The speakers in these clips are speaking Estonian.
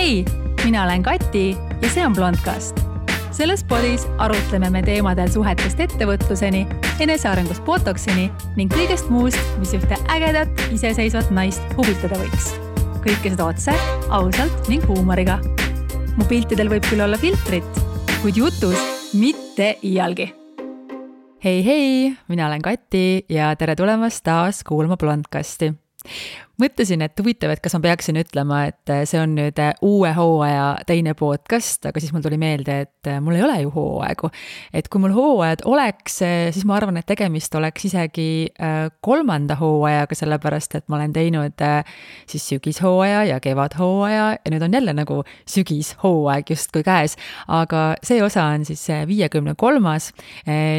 Hei, mina olen Kati ja see on Blondcast. Selles podis arutleme me teemadel suhetest ettevõtluseni, enesearengust botoksini ning kõigest muust, mis ühte ägedat, iseseisvat naist huvitada võiks. Kõike seda otse, ausalt ning huumoriga. Mu piltidel võib küll olla filtrit, kuid jutus mitte iialgi. Hei, mina olen Kati ja tere tulemast taas kuulma Blondcasti. Mõtlesin, et huvitav, et kas ma peaksin ütlema, et see on nüüd uue hooaja teine podcast, aga siis mul tuli meelde, et mul ei ole ju hooaegu. Et kui mul hooajad oleks, siis ma arvan, et tegemist oleks isegi kolmanda hooajaga, sellepärast, et ma olen teinud siis sügishooaja ja kevadhooaja ja nüüd on jälle nagu sügishooaeg justkui käes. Aga see osa on siis 53.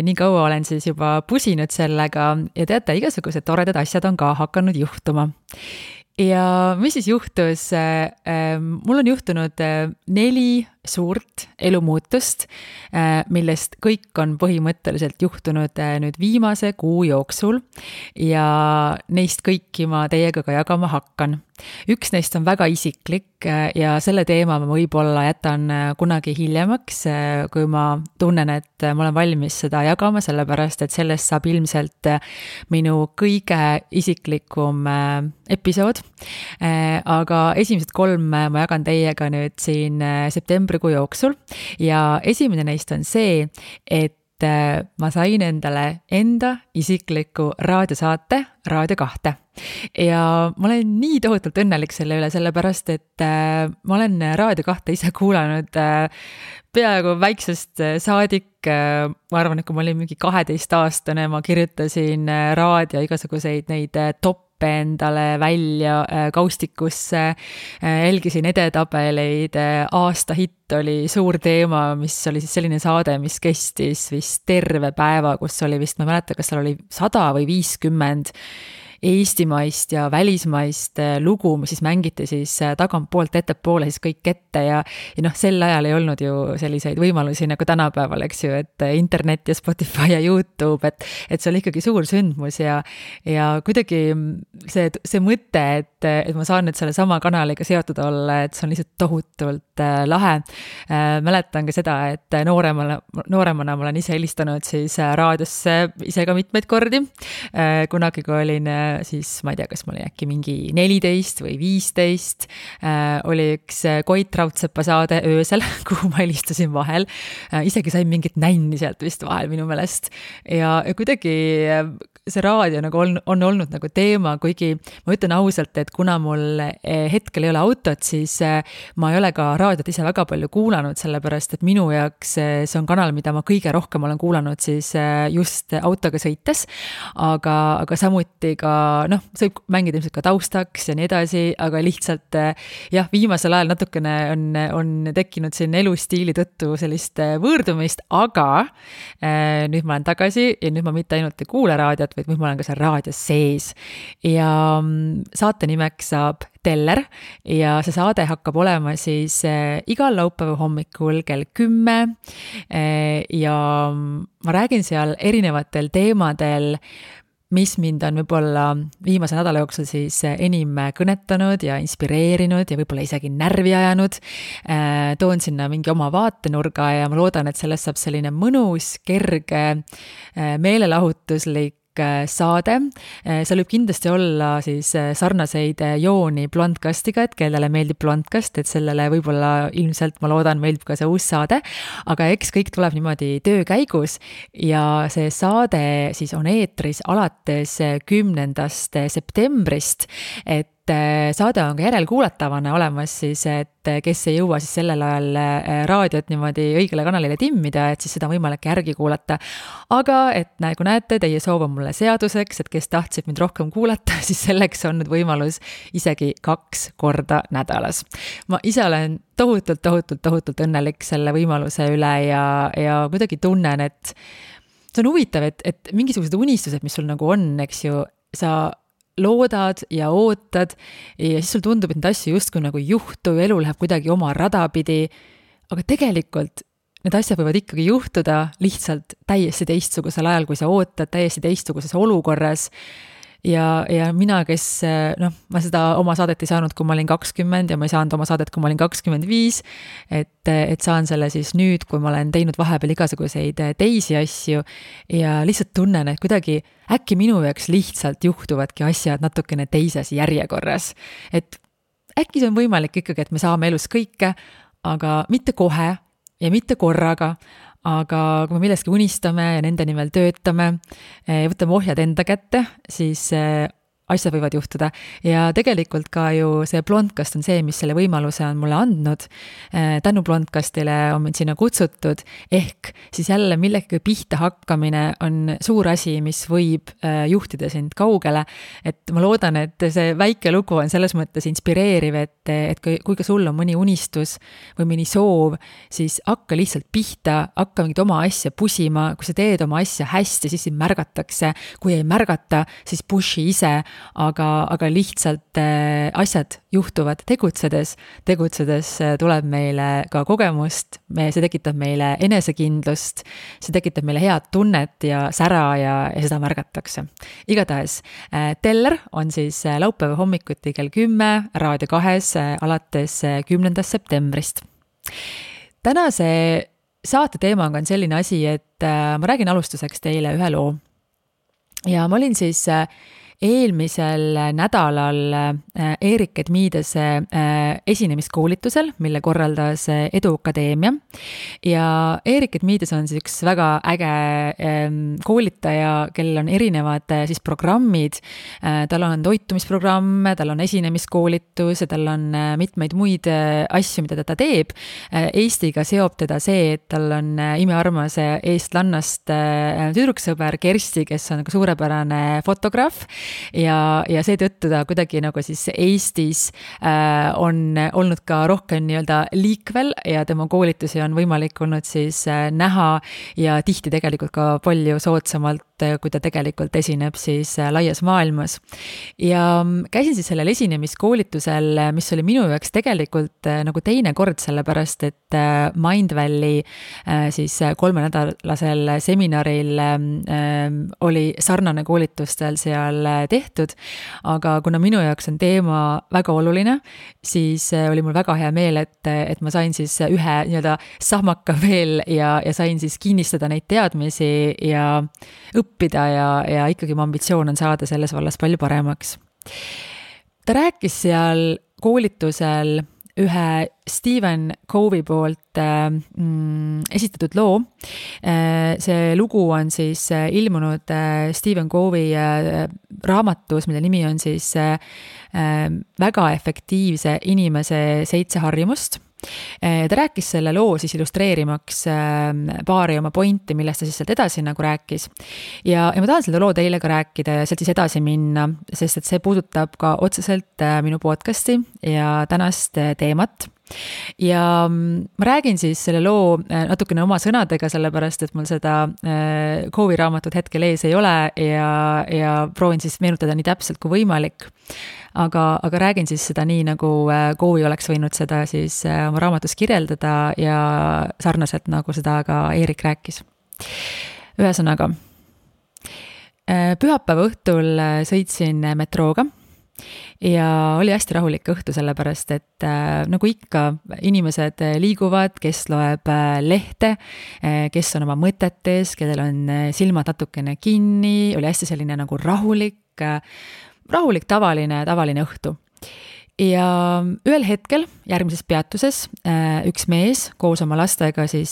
Nii kaua olen siis juba pusinud sellega ja teate, igasugused toredad asjad on ka hakanud juhtuma. Ja mis siis juhtus? Mul on juhtunud 4 suurt elumuutust, millest kõik on põhimõtteliselt juhtunud nüüd viimase kuu jooksul ja neist kõiki ma teiega ka jagama hakkan. Üks neist on väga isiklik ja selle teema ma võib-olla jätan kunagi hiljemaks, kui ma tunnen, et ma olen valmis seda jagama, sellepärast et sellest saab ilmselt minu kõige isiklikum episood. Aga esimesed 3 ma jagan teiega nüüd siin septembrikuu jooksul ja esimene neist on see, et ma sain endale enda isikliku raadiosaate Raadio 2. Ja ma olen nii tohutult õnnelik selle üle, sellepärast, et ma olen Raadio 2 ise kuulanud peaaegu väiksest saadik. Ma arvan, et kui ma olin mingi 12-aastane, ma kirjutasin raadio igasuguseid neid toppe endale välja kaustikusse, jälgisin edetabeleid, aasta hitt oli suur teema, mis oli siis selline saade, mis kestis vist terve päeva, kus oli vist, ma ei mäleta, kas seal oli 100 või 50 eestimaist ja välismaist lugu, mis siis mängiti siis tagantpoolt ettepoole siis kõik ette ja sel ajal ei olnud ju selliseid võimalusi nagu tänapäeval, eks ju, et internet ja Spotify ja YouTube, et see oli ikkagi suur sündmus ja kuidagi see mõte, et ma saan nüüd selle sama kanaliga seotud olla, et see on lihtsalt tohutult lahe. Mäletan ka seda, et nooremana ma olen ise helistanud siis raadiosse ise ka mitmeid kordi. Kunagi, kui olin siis, ma ei tea, kas ma olin äkki mingi 14 või 15, oli üks Koit Raudsepa saade öösel, kuhu ma helistasin vahel. Isegi sain mingit nänni sealt vist vahel minu meelest. Ja kuidagi see raadio nagu on olnud nagu teema, kuigi ma ütlen ausalt, et kuna mul hetkel ei ole autot, siis ma ei ole ka raadiot ise väga palju kuulanud, sellepärast, et minu jaoks see on kanal, mida ma kõige rohkem olen kuulanud siis just autoga sõites, aga samuti ka, see võib mängida ilmselt ka taustaks ja nii edasi, aga lihtsalt viimasel ajal natukene on tekkinud siin elustiili tõttu sellist võõrdumist, aga nüüd ma olen tagasi ja nüüd ma mitte ainult ei kuule raadiot, vaid nüüd ma olen ka seal raadios sees. Ja saate nimeks saab Teller ja see saade hakkab olema siis igal laupäeva hommikul kell 10 ja ma räägin seal erinevatel teemadel, mis mind on võib-olla viimase nädala jooksul siis enim kõnetanud ja inspireerinud ja võib-olla isegi närvi ajanud. Toon sinna mingi oma vaatenurga ja ma loodan, et sellest saab selline mõnus, kerge, meelelahutuslik saade. Seal võib kindlasti olla siis sarnaseid jooni Blondcastiga, et kellele meeldib Blondcast, et sellele võib-olla ilmselt, ma loodan, meeldib ka see uus saade, aga eks kõik tuleb niimoodi töö käigus ja see saade siis on eetris alates 10. septembrist, et saade on ka järelkuulatavana olemas siis, et kes ei jõua siis sellel ajal raadiot niimoodi õigele kanalile timmida, et siis seda on võimalik järgi kuulata. Aga et nagu näete, teie soov on mulle seaduseks, et kes tahtsid mind rohkem kuulata, siis selleks on nüüd võimalus isegi 2 korda nädalas. Ma ise olen tohutult õnnelik selle võimaluse üle ja kuidagi tunnen, et see on huvitav, et mingisugused unistused, mis sul nagu on, eks ju, sa loodad ja ootad ja siis sul tundub, et need asju justkui nagu juhtu, elu läheb kuidagi oma rada pidi, aga tegelikult need asjad võivad ikkagi juhtuda lihtsalt täiesti teistsugusel ajal, kui sa ootad, täiesti teistsuguses olukorras. ja mina, kes ma seda oma saadet ei saanud, kui ma olin 20 ja ma ei saanud oma saadet, kui ma olin 25, et saan selle siis nüüd, kui ma olen teinud vahepeal igasuguseid teisi asju ja lihtsalt tunnen, et kuidagi äkki minu jaoks lihtsalt juhtuvadki asjad natukene teises järjekorras. Et äkki see on võimalik ikkagi, et me saame elus kõike, aga mitte kohe ja mitte korraga, aga kui me milleski unistame ja nende nimel töötame, võtame ohjad enda kätte, siis asjad võivad juhtuda. Ja tegelikult ka ju see Blondcast on see, mis selle võimaluse on mulle andnud. Tänu Blondcastile on mind sinna kutsutud, ehk siis jälle millegagi pihta hakkamine on suur asi, mis võib juhtida sind kaugele. Et ma loodan, et see väike lugu on selles mõttes inspireeriv, et kui ka sul on mõni unistus või mõni soov, siis hakka lihtsalt pihta, hakka mingit oma asja pusima. Kui sa teed oma asja hästi, siis sind märgatakse. Kui ei märgata, siis pushi ise. Aga lihtsalt asjad juhtuvad tegutsedes tuleb meile ka kogemust, see tekitab meile enesekindlust, see tekitab meile head tunnet ja sära ja seda märgatakse. Igatahes, Teller on siis laupäeva hommikuti kell 10 Raadio 2 alates 10. septembrist. Tänase saate teemaga on selline asi, et ma räägin alustuseks teile ühe loo. Ja ma olin siis eelmisel nädalal Erik Edmiidese esinemiskoolitusel, mille korraldas Edu Akadeemia. Ja Erik Edmiides on siis üks väga äge koolitaja, kellel on erinevad siis programmid. Tal on toitumisprogramm, tal on esinemiskoolitus ja tal on mitmeid muid asju, mida ta teeb. Eestiga seob teda see, et tal on imearmas eestlannast tüdruksõber Kersti, kes on suurepärane fotograaf. Ja seetõttu ta kuidagi nagu siis Eestis on olnud ka rohkem nii-öelda liikvel ja tema koolitusi on võimalik olnud siis näha ja tihti tegelikult ka palju soodsamalt, kui ta tegelikult esineb siis laias maailmas. Ja käisin siis sellel esinemiskoolitusel, mis oli minu jaoks tegelikult nagu teine kord, sellepärast, et Mindvalley siis 3-nädalasel seminaril oli sarnane koolitustel seal tehtud, aga kuna minu jaoks on teema väga oluline, siis oli mul väga hea meel, et ma sain siis ühe nii-öelda sahmaka veel ja sain siis kinnistada neid teadmisi ja õppida ja ikkagi mu ambitsioon on saada selles vallas palju paremaks. Ta rääkis seal koolitusel ühe Stephen Covey poolt esitatud loo. See lugu on siis ilmunud Stephen Covey raamatus, mille nimi on siis väga efektiivse inimese 7 harjumust. Ta rääkis selle loo siis illustreerimaks paari oma pointi, millest ta siis sealt edasi nagu rääkis. Ja ma tahan selle loo teile ka rääkida ja sealt siis edasi minna, sest et see puudutab ka otseselt minu podcasti ja tänast teemat. Ja ma räägin siis selle loo natukene oma sõnadega, sellepärast, et mul seda Covey raamatut hetkel ees ei ole ja proovin siis meenutada nii täpselt kui võimalik. Aga räägin siis seda nii, nagu Covey oleks võinud seda siis oma raamatus kirjeldada ja sarnaselt nagu seda ka Erik rääkis. Ühesõnaga, pühapäeva õhtul sõitsin metrooga. Ja oli hästi rahulik õhtu, sellepärast, et nagu ikka inimesed liiguvad, kes loeb lehte, kes on oma mõtetes, kellel on silmad natukene kinni, oli hästi selline nagu rahulik tavaline õhtu. Ja ühel hetkel järgmises peatuses üks mees koos oma lastega siis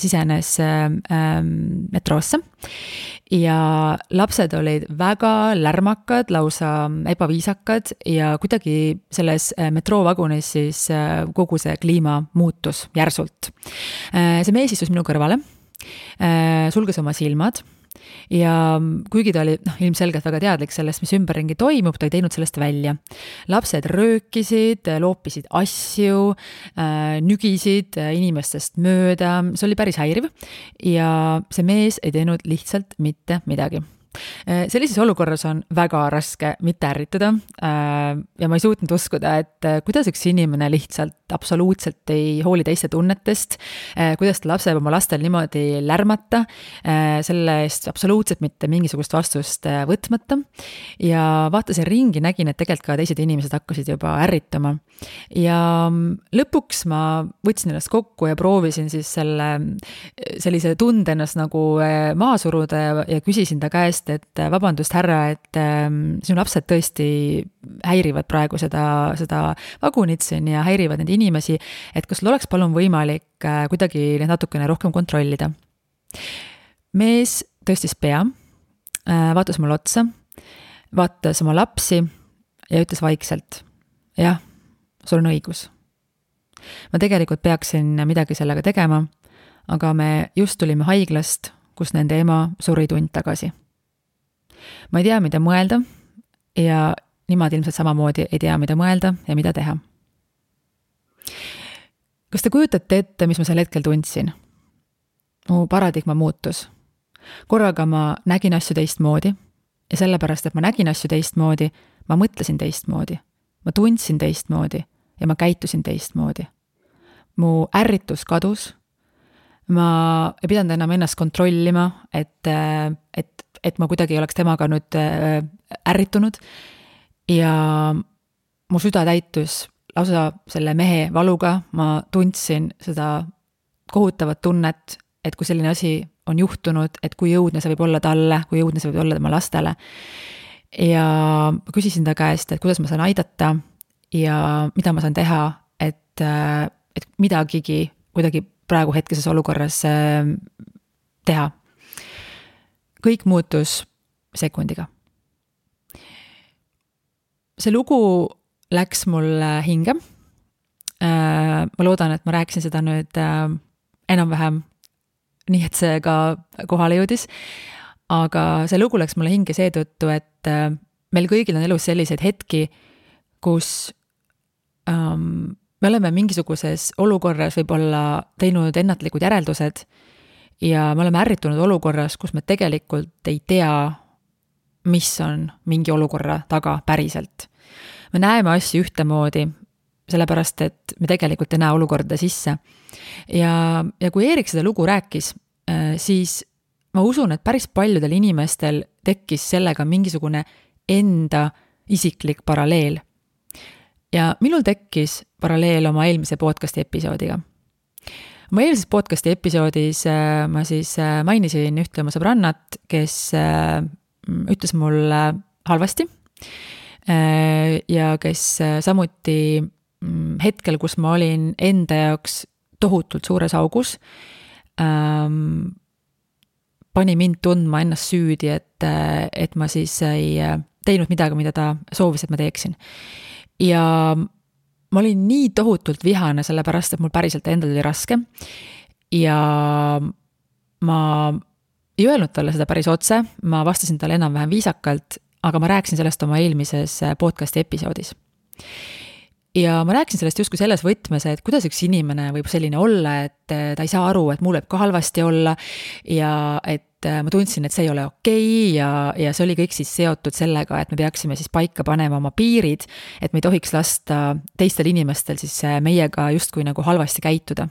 sisenes metroosse ja lapsed olid väga lärmakad, lausa ebaviisakad ja kuidagi selles metroovagunis siis kogu see kliima muutus järsult. See mees istus minu kõrvale, sulges oma silmad. Ja kuigi ta oli ilmselgelt väga teadlik sellest, mis ümberringi toimub, ta ei teinud sellest välja. Lapsed röökisid, loopisid asju, nügisid inimestest mööda, see oli päris häiriv ja see mees ei teinud lihtsalt mitte midagi. Sellises olukorras on väga raske mitte ärrituda ja ma ei suutnud uskuda, et kuidas üks inimene lihtsalt absoluutselt ei hooli teiste tunnetest, kuidas ta laseb oma lastel niimoodi lärmata, selle eest absoluutselt mitte mingisugust vastust võtmata ja vaatasin ringi, nägin, et tegelikult ka teised inimesed hakkasid juba ärrituma ja lõpuks ma võtsin ennast kokku ja proovisin siis sellise tunde ennast nagu maha suruda ja küsisin ta käest, et vabandust, härra, et sinu lapsed tõesti häirivad praegu seda vagunit siin ja häirivad neid inimesi, et kas sul oleks palun võimalik kuidagi neid natukene rohkem kontrollida. Mees tõstis pea, vaatas mulle otsa, vaatas oma lapsi ja ütles vaikselt, jah, sul on õigus. Ma tegelikult peaksin midagi sellega tegema, aga me just tulime haiglast, kus nende ema suri tund tagasi. Ma ei tea, mida mõelda ja nimad ilmselt samamoodi ei tea, mida mõelda ja mida teha. Kas te kujutate ette, mis ma sel hetkel tundsin? Mu paradigma muutus. Korraga ma nägin asju teistmoodi ja sellepärast, et ma nägin asju teistmoodi, ma mõtlesin teistmoodi, ma tundsin teistmoodi ja ma käitusin teistmoodi. Mu ärritus kadus, ma ei pidanud enam ennast kontrollima, et ma kuidagi ei oleks temaga nüüd ärritunud ja mu süda täitus lausa selle mehe valuga, ma tundsin seda kohutavat tunnet, et kui selline asi on juhtunud, et kui jõudne see võib olla talle, kui jõudne see võib olla tema lastele. Ja küsisin ta käest, et kuidas ma saan aidata ja mida ma saan teha, et midagigi kuidagi praegu hetkeses olukorras teha. Kõik muutus sekundiga. See lugu läks mulle hinge. Ma loodan, et ma rääkisin seda nüüd enam-vähem nii, et see ka kohale jõudis. Aga see lugu läks mulle hinge seetõttu, et meil kõigil on elus selliseid hetki, kus me oleme mingisuguses olukorras võib-olla teinud ennatlikud järeldused ja me oleme ärritunud olukorras, kus me tegelikult ei tea, mis on mingi olukorra taga päriselt. Me näeme asju ühtemoodi, sellepärast, et me tegelikult ei näe olukorda sisse. Ja kui Eerik seda lugu rääkis, siis ma usun, et päris paljudel inimestel tekkis sellega mingisugune enda isiklik paralleel. Ja minul tekkis paralleel oma eelmise podcasti episoodiga. Oma eelmises podcasti episoodis ma siis mainisin ühte oma sõbrannat, kes ütles mulle halvasti ja kes samuti hetkel, kus ma olin enda jaoks tohutult suures augus, pani mind tundma ennast süüdi, et ma siis ei teinud midagi, mida ta soovis, et ma teeksin. Ja ma olin nii tohutult vihane, sellepärast, et mul päriselt endal oli raske ja ma ei öelnud talle seda päris otse, ma vastasin talle enam-vähem viisakalt, aga ma rääkisin sellest oma eelmises podcasti episoodis. Ja ma rääkisin sellest justkui selles võtmes, et kuidas üks inimene võib selline olla, et ta ei saa aru, et mul võib ka halvasti olla ja et ma tundsin, et see ei ole okei ja see oli kõik siis seotud sellega, et me peaksime siis paika panema oma piirid, et me ei tohiks lasta teistel inimestel siis meiega justkui nagu halvasti käituda.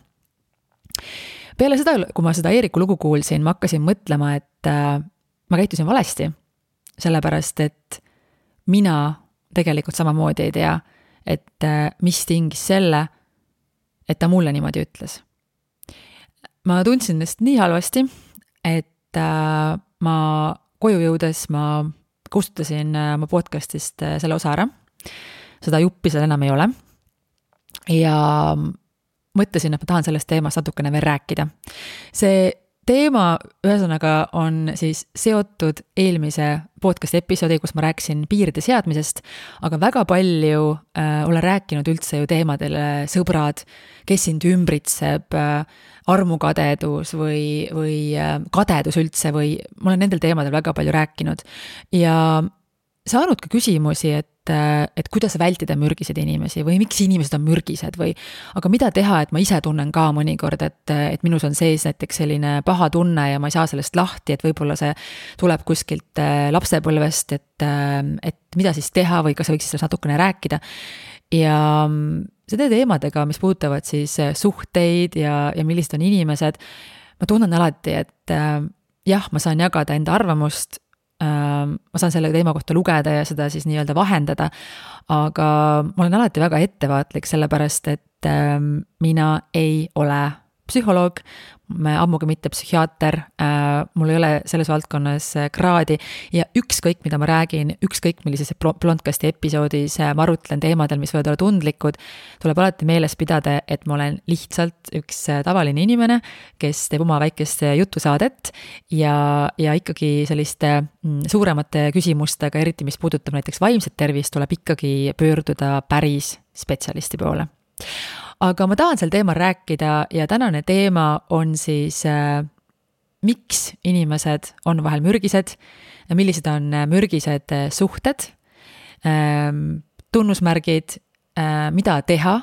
Peale seda, kui ma seda Eeriku lugu kuulsin, ma hakkasin mõtlema, et ma käitusin valesti, sellepärast, et mina tegelikult samamoodi ei tea, et mis tingis selle, et ta mulle niimoodi ütles. Ma tundsin ennast nii halvasti, et ma koju jõudes ma kustutasin oma podcastist selle osa ära. Seda juppi seal enam ei ole. Ja mõtlesin, et ma tahan sellest teemast natukene veel rääkida. See teema ühesõnaga on siis seotud eelmise podcast episoodi, kus ma rääkisin piiride seadmisest, aga väga palju olen rääkinud üldse ju teemadele sõbrad, kes sind ümbritseb, armukadedus või kadedus üldse või ma olen nendel teemadel väga palju rääkinud ja saanud ka küsimusi, et et kuidas vältida mürgiseid inimesi või miks inimesed on mürgised või aga mida teha, et ma ise tunnen ka mõnikord, et minus on sees näiteks selline paha tunne ja ma ei saa sellest lahti, et võib-olla see tuleb kuskilt lapsepõlvest, et mida siis teha või kas võiks sellest natukene rääkida. Ja seda teemadega, mis puudutavad siis suhteid ja millised on inimesed, ma tunnen alati, et jah, ma saan jagada enda arvamust, ma saan selle teema kohta lugeda ja seda siis nii-öelda vahendada, aga ma olen alati väga ettevaatlik, sellepärast et mina ei ole psühholoog, ammugi mitte psühhiaater, mul ei ole selles valdkonnas kraadi ja ükskõik, mida ma räägin, ükskõik millises Blondcasti episoodis ma arutlen teemadel, mis võivad olla tundlikud, tuleb alati meeles pidada, et ma olen lihtsalt üks tavaline inimene, kes teeb oma väikest jutusaadet ja ikkagi selliste suuremate küsimustega, eriti mis puudutab näiteks vaimset tervist, tuleb ikkagi pöörduda päris spetsialisti poole. Aga ma tahan sel teemal rääkida ja tänane teema on siis, miks inimesed on vahel mürgised, millised on mürgised suhted, tunnusmärgid, mida teha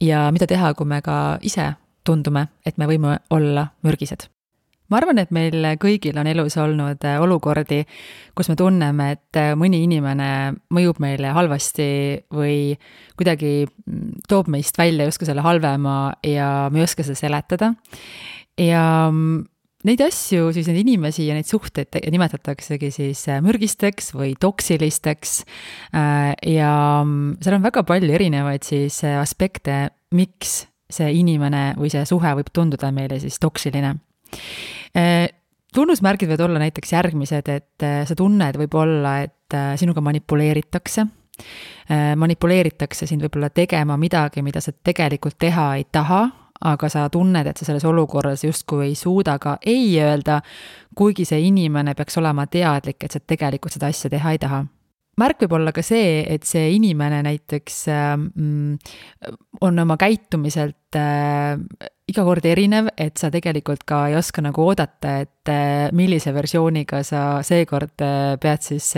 ja mida teha, kui me ka ise tundume, et me võime olla mürgised. Ma arvan, et meil kõigil on elus olnud olukordi, kus me tunneme, et mõni inimene mõjub meile halvasti või kuidagi toob meist välja justkui selle halvema ja me ei oska seda seletada. Ja neid asju, siis neid inimesi ja neid suhteid nimetataksegi siis mürgisteks või toksilisteks ja seal on väga palju erinevaid siis aspekte, miks see inimene või see suhe võib tunduda meile siis toksiline. Tunnusmärgid võivad olla näiteks järgmised, et sa tunned võib olla, et sinuga manipuleeritakse sind võib-olla tegema midagi, mida sa tegelikult teha ei taha, aga sa tunned, et sa selles olukorras justkui ei suuda ka ei öelda, kuigi see inimene peaks olema teadlik, et sa tegelikult seda asja teha ei taha. Märk võib olla ka see, et see inimene näiteks on oma käitumiselt iga kord erinev, et sa tegelikult ka ei oska nagu oodata, et millise versiooniga sa seekord pead siis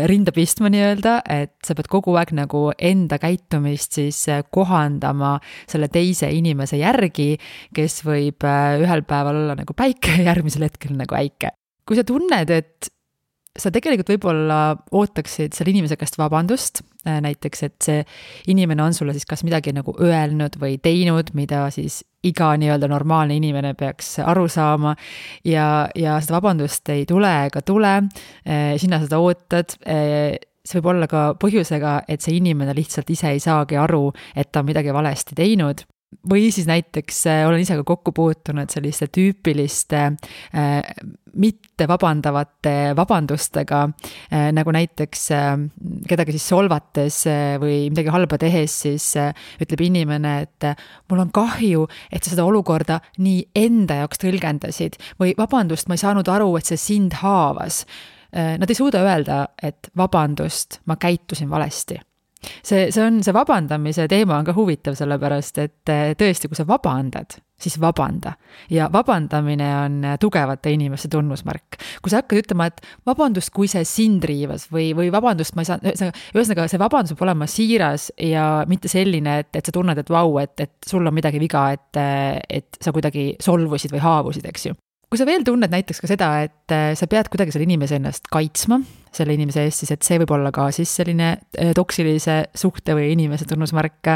rinda pistma nii-öelda, et sa pead kogu aeg nagu enda käitumist siis kohandama selle teise inimese järgi, kes võib ühel päeval olla nagu päike ja järgmisel hetkel nagu äike. Kui sa tunned, et sa tegelikult võib-olla ootaksid selle inimese käest vabandust, näiteks, et see inimene on sulle siis kas midagi nagu öelnud või teinud, mida siis iga nii-öelda normaalne inimene peaks aru saama ja seda vabandust ei tule ega tule, sina seda ootad, see võib olla ka põhjusega, et see inimene lihtsalt ise ei saagi aru, et ta on midagi valesti teinud. Või siis näiteks olen ise ka kokku puutunud selliste tüüpiliste mitte vabandavate vabandustega, nagu näiteks kedagi siis solvates või midagi halba tehes, siis ütleb inimene, et mul on kahju, et sa seda olukorda nii enda jaoks tõlgendasid või vabandust, ma ei saanud aru, et see sind haavas. Nad ei suuda öelda, et vabandust, ma käitusin valesti. See vabandamise teema on ka huvitav, sellepärast, et tõesti, kui sa vabandad, siis vabanda. Ja vabandamine on tugevate inimeste tunnusmärk. Kui sa hakkad ütlema, et vabandust, kui see sind riivas või vabandust, ma ei saa, ühesõnaga see vabandus peab olema siiras ja mitte selline, et sa tunned, et vau, et sul on midagi viga, et sa kuidagi solvusid või haavusid, eks ju. Kui sa veel tunned näiteks ka seda, et sa pead kuidagi selle inimese ennast kaitsma, selle inimese eest, siis et see võib olla ka siis selline toksilise suhte või inimese tunnusmärk.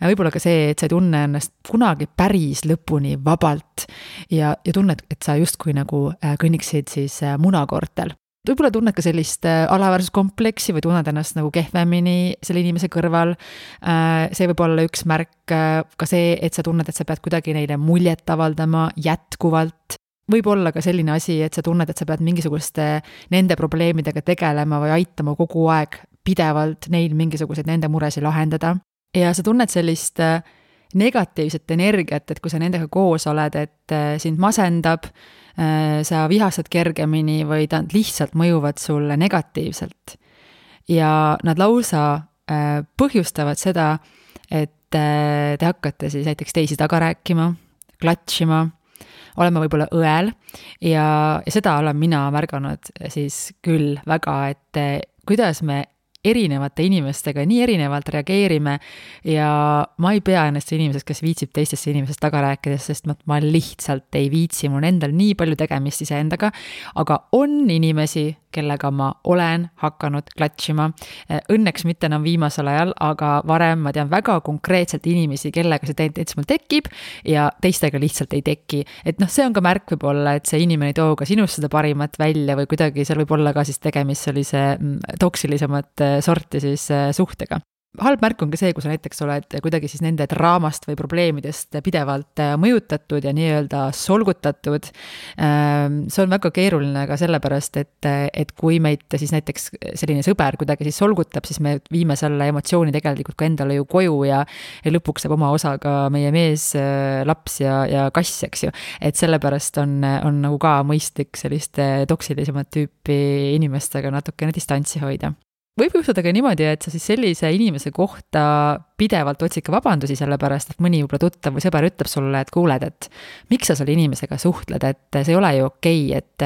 Võib-olla ka see, et sa ei tunne ennast kunagi päris lõpuni vabalt ja tunned, et sa justkui nagu kõnniksid siis munakoortel. Võib-olla tunned ka sellist alaväärsuskompleksi või tunned ennast nagu kehvemini selle inimese kõrval. See võib olla üks märk, ka see, et sa tunned, et sa pead kuidagi neile muljet avaldama jätkuvalt. Võib olla ka selline asi, et sa tunned, et sa pead mingisuguste nende probleemidega tegelema või aitama kogu aeg pidevalt neil mingisuguseid nende muresi lahendada. Ja sa tunned sellist negatiivset energiat, et kui sa nendega koos oled, et sind masendab, sa vihastad kergemini või nad lihtsalt mõjuvad sulle negatiivselt. Ja nad lausa põhjustavad seda, et te hakkate siis näiteks teisi taga rääkima, klatšima, olema võib-olla õel ja seda olen mina märganud siis küll väga, et kuidas me erinevate inimestega nii erinevalt reageerime ja ma ei pea ennast inimesest, kes viitsib teistesse inimesest taga rääkides, sest ma lihtsalt ei viitsi, mul on endal nii palju tegemist iseendaga, aga on inimesi, kellega ma olen hakanud klatšima. Õnneks mitte enam viimasel ajal, aga varem ma tean väga konkreetselt inimesi, kellega see tendents mul tekib ja teistega lihtsalt ei teki. Et see on ka märk võib-olla, et see inimene ei too ka sinust seda parimat välja või kuidagi seal võib olla ka siis tegemist sellise toksilisemat sorti siis suhtega. Halb märk on ka see, kui sa näiteks oled kuidagi siis nende draamast või probleemidest pidevalt mõjutatud ja nii-öelda solgutatud. See on väga keeruline ka sellepärast, et kui meid siis näiteks selline sõber kuidagi siis solgutab, siis me viime selle emotsiooni tegelikult ka endale ju koju ja lõpuks saab oma osa ka meie mees, laps ja kass, eks ju. Et sellepärast on nagu ka mõistlik selliste toksilisemat tüüpi inimestega natukene distantsi hoida. Võib juhtuda ka niimoodi, et sa siis sellise inimese kohta pidevalt otsid ka vabandusi sellepärast, et mõni võib-olla tuttav või sõber ütleb sulle, et kuuled, et miks sa selle inimesega suhtled, et see ei ole ju okei, et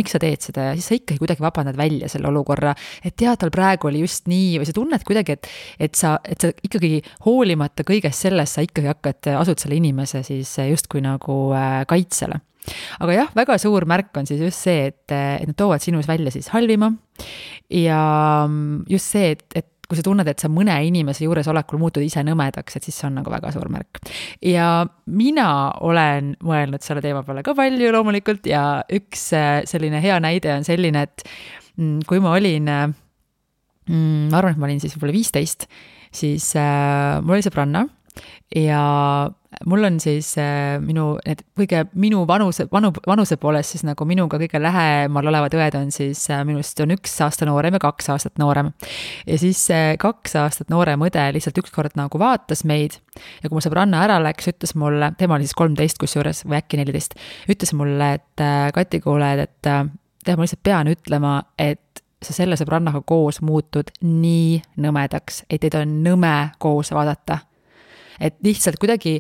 miks sa teed seda ja siis sa ikkagi kuidagi vabandad välja selle olukorra, et tal praegu oli just nii või sa tunned kuidagi, et sa ikkagi hoolimata kõigest sellest, sa ikkagi asud selle inimese siis justkui nagu kaitsele. Aga jah, väga suur märk on siis just see, et nad toovad sinus välja siis halvima ja just see, et kui sa tunned, et sa mõne inimese juures olekul muutud ise nõmedaks, et siis see on nagu väga suur märk. Ja mina olen mõelnud selle teema peale ka palju loomulikult ja üks selline hea näide on selline, et kui ma olin, ma arvan, et ma olin siis võib-olla 15, siis mul oli sõbranna ja mul on siis minu vanuse poolest siis nagu minuga kõige lähemal olevad õed on siis minust on 1 aasta noorem ja 2 aastat noorem. Ja siis 2 aastat noorem õde lihtsalt ükskord nagu vaatas meid ja kui mu sõbranna ära läks, ütles mulle, tema oli siis 13 kusjuures või äkki 14, ütles mulle, et Kati, kuule, et ma lihtsalt pean ütlema, et sa selle sõbrannaga koos muutud nii nõmedaks, et teid on nõme koos vaadata. Et lihtsalt kuidagi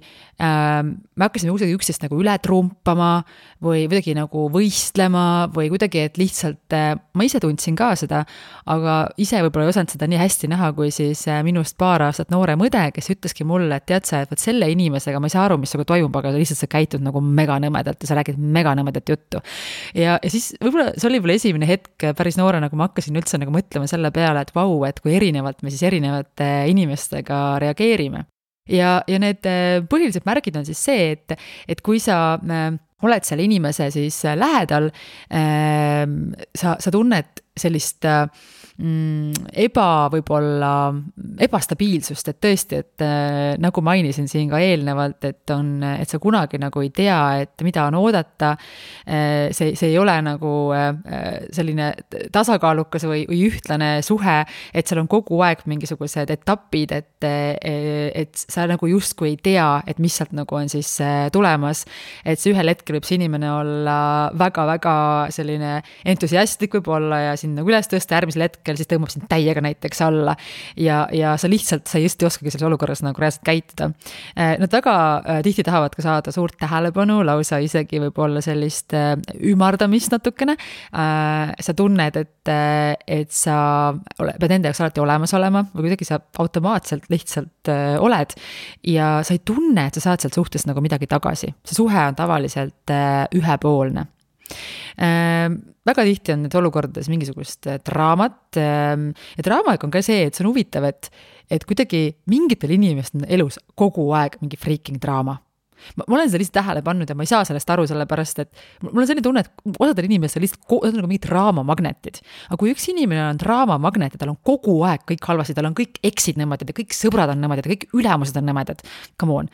me hakkasime kuidagi üksteist nagu üle trumpama või kuidagi nagu võistlema või kuidagi, et lihtsalt ma ise tundsin ka seda, aga ise võib-olla ei osanud seda nii hästi näha, kui siis minust 2 aastat noorem õde, kes ütleski mulle, et tead sa, et selle inimesega ma ei saa aru, mis toimub, aga lihtsalt sa käitud nagu mega nõmedalt ja sa räägid mega nõmedat juttu. Ja siis võib-olla see oli võib-olla esimene hetk päris noorena, kui ma hakkasin üldse nagu mõtlema selle peale, et vau, et kui erinevalt me siis erinevate inimestega reageerime. Ja need põhilised märgid on siis see, et kui sa oled selle inimese siis lähedal, sa tunned sellist võib-olla ebastabiilsust, et tõesti, et nagu mainisin siin ka eelnevalt, et sa kunagi nagu ei tea, et mida on oodata, see ei ole nagu selline tasakaalukas või ühtlane suhe, et seal on kogu aeg mingisugused etapid, et sa nagu justkui ei tea, et mis sealt nagu on siis tulemas, et see ühel hetkel võib see inimene olla väga-väga selline entusiastlik võib olla ja siin nagu üles tõsta järgmisel hetkel siis tõmbab sind täiega näiteks alla ja sa lihtsalt, sa just ei oskagi selles olukorras nagu reaalselt käituda. Nad väga tihti tahavad ka saada suurt tähelepanu, lausa isegi võib-olla sellist ümardamist natukene. Sa tunned, et sa pead nende jaoks alati olemas olema või kuidagi sa automaatselt lihtsalt oled ja sa ei tunne, et sa saad sealt suhtest nagu midagi tagasi. See suhe on tavaliselt ühepoolne. Väga tihti on need olukordades mingisugust draamat ja draamaga on ka see, et see on huvitav, et kuidagi mingitel inimestel on elus kogu aeg mingi freaking draama. Ma olen seda lihtsalt tähele pannud ja ma ei saa sellest aru sellepärast, et mul on selline tunne, et osadel inimestel lihtsalt on nagu mingid draamamagnetid. Aga kui üks inimene on draamamagnet ja tal on kogu aeg kõik halvasti, tal on kõik eksid nõmedad ja kõik sõbrad on nõmedad ja kõik ülemused on nõmedad, come on,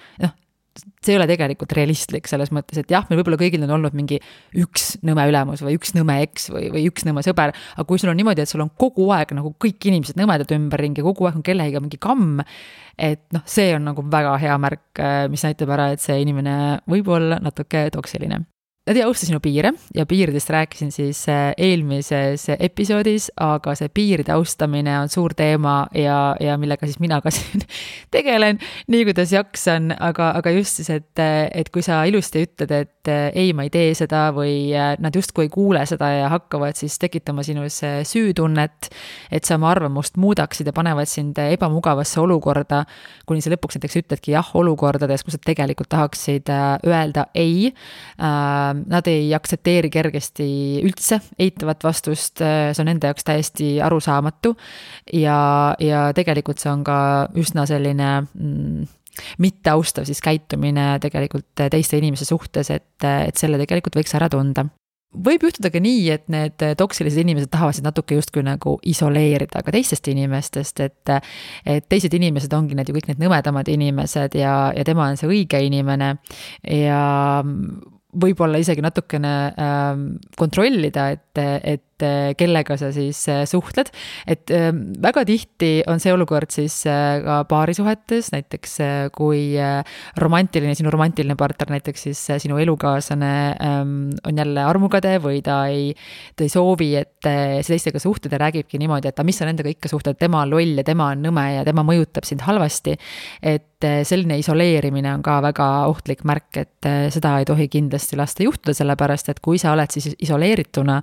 see ei ole tegelikult realistlik selles mõttes, et jah, meil võib-olla kõigil on olnud mingi üks nõme ülemus või üks nõme eks või üks nõme sõber, aga kui sul on niimoodi, et sul on kogu aeg nagu kõik inimesed nõmedad ümberringi ja kogu aeg on kellegiga mingi kamm, et see on nagu väga hea märk, mis näitab ära, et see inimene võib olla natuke toksiline. nad ei austa sinu piire ja piiridest rääkisin siis eelmises episoodis, aga see piiride austamine on suur teema ja millega siis mina ka siin tegelen, nii kuidas jaksan, aga just siis, et kui sa ilusti ütled, et ei, ma ei tee seda või nad justkui ei kuule seda ja hakkavad siis tekitama sinus süütunnet, et sa oma arvamust muudaksid ja panevad sind ebamugavasse olukorda, kuni sa lõpuks näiteks ütledki jah olukordades, kus sa tegelikult tahaksid öelda ei. Nad ei aktsepteeri kergesti üldse eitavat vastust, see on nende jaoks täiesti arusaamatu ja tegelikult see on ka üsna selline mitte austav siis käitumine tegelikult teiste inimese suhtes, et selle tegelikult võiks ära tunda. Võib juhtuda ka nii, et need toksilised inimesed tahavad natuke justkui nagu isoleerida ka teistest inimestest, et teised inimesed ongi need ju kõik need nõmedamad inimesed ja tema on see õige inimene ja võib-olla isegi natukene kontrollida, et kellega sa siis suhtled, et väga tihti on see olukord siis ka paarisuhetes, näiteks kui sinu romantiline partner, näiteks siis sinu elukaaslane on jälle armukade või ta ei soovi, et see teistega suhted ja räägibki niimoodi, et mis sa nendega ikka suhted, tema on loll ja tema on nõme ja tema mõjutab sind halvasti, et selline isoleerimine on ka väga ohtlik märk, et seda ei tohi kindlasti lasta juhtuda, sellepärast, et kui sa oled siis isoleerituna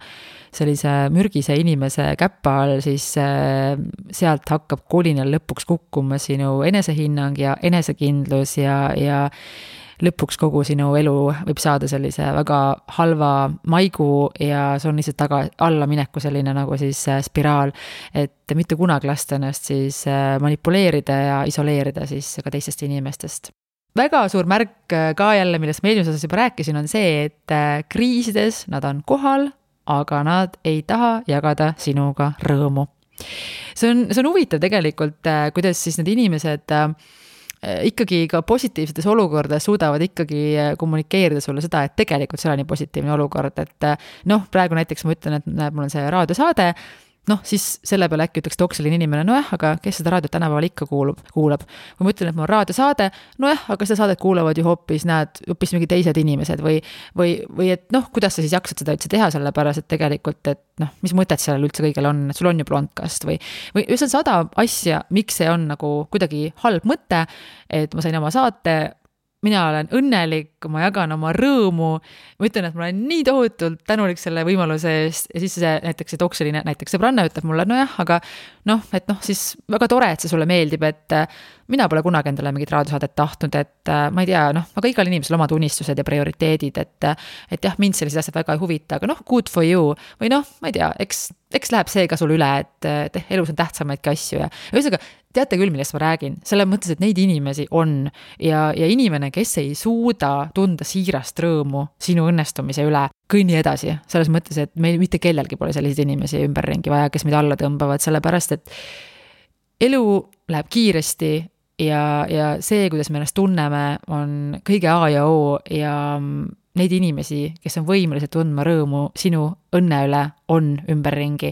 sellise mürgise inimese käppa all, siis sealt hakkab kolinal lõpuks kukkuma sinu enesehinnang ja enesekindlus ja lõpuks kogu sinu elu võib saada sellise väga halva maigu ja see on lihtsalt alla mineku selline nagu siis spiraal, et mitte kunagi lasta ennast siis manipuleerida ja isoleerida siis ka teistest inimestest. Väga suur märk ka jälle, millest ma eelmises osas juba rääkisin, on see, et kriisides nad on kohal, aga nad ei taha jagada sinuga rõõmu. See on huvitav tegelikult, kuidas siis need inimesed ikkagi ka positiivsetes olukordades suudavad ikkagi kommunikeerida sulle seda, et tegelikult see on nii positiivne olukord, et praegu näiteks ma ütlen, et mul on see raadiosaade, siis selle peale äkki ütleks toksiline inimene, aga kes seda raadiot tänapäeval ikka kuulab. Kui ma ütlen, et mul on raadiosaade, aga seda saadet kuulavad ju hoopis mingi teised inimesed või et kuidas sa siis jaksad seda üldse teha, sellepärast, et tegelikult, et mis mõtet sellel üldse kõigel on, et sul on ju blondcast või see on 100 asja, miks see on nagu kuidagi halb mõte, et ma sain oma saate, mina olen õnnelik, ma jagan oma rõõmu, ma ütlen, et ma olen nii tohutult tänulik selle võimaluse eest ja siis näiteks see toksiline, näiteks sõbranna ütleb mulle, aga siis väga tore, et see sulle meeldib, et mina pole kunagi endale mingit raadiosaadet tahtnud, et ma ei tea, aga igal inimesel omad unistused ja prioriteedid, et jah, mind sellised asjad väga ei huvita, aga good for you või ma ei tea, eks läheb see ka sul üle, et elus on tähtsamaidki asju ja ühesõnaga, teate küll, millest ma räägin, selle mõttes, et neid inimesi on ja inimene, kes ei suuda tunda siirast rõõmu sinu õnnestumise üle, kõnni edasi, selles mõttes, et meil mitte kellelgi pole selliseid inimesi ümberringi vaja, kes meid alla tõmbavad, sellepärast, et elu läheb kiiresti ja see, kuidas me ennast tunneme, on kõige A ja O ja neid inimesi, kes on võimelised tundma rõõmu sinu õnne üle, on ümberringi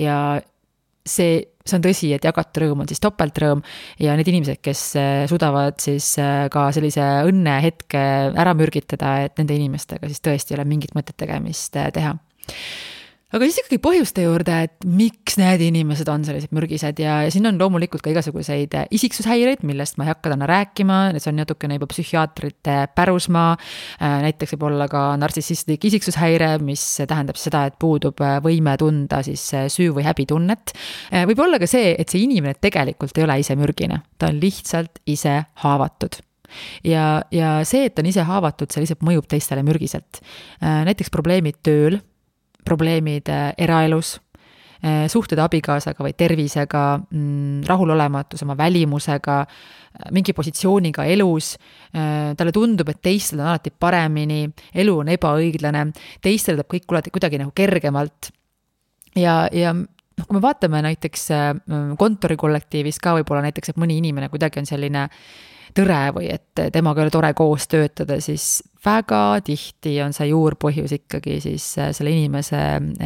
ja see on tõsi, et jagatud rõõm on siis topeltrõõm ja need inimesed, kes suudavad siis ka sellise õnnehetke ära mürgitada, et nende inimestega siis tõesti ei ole mingit mõtet tegemist teha. Aga siis ikkagi põhjuste juurde, et miks need inimesed on sellised mürgised ja siin on loomulikult ka igasuguseid isiksushäireid, millest ma ei hakka täna rääkima, need on natukene juba psühhiaatrite pärusmaa, näiteks võib olla ka nartsissistlik isiksushäire, mis tähendab seda, et puudub võime tunda siis süü- või häbitunnet. Võib olla ka see, et see inimene tegelikult ei ole ise mürgine, ta on lihtsalt ise haavatud. Ja see, et ta on ise haavatud, see lihtsalt mõjub teistele mürgiselt. Näiteks probleemid tööl, probleemid eraelus, suhted abikaasaga või tervisega, rahulolematus oma välimusega, mingi positsiooniga elus, talle tundub, et teistel on alati paremini, elu on ebaõiglane, teistel tuleb kõik kuidagi nagu kergemalt ja kui me vaatame näiteks kontorikollektiivis ka võib-olla näiteks, et mõni inimene kuidagi on selline tõre või et temaga ei ole tore koos töötada, siis väga tihti on see juurpõhjus ikkagi siis selle inimese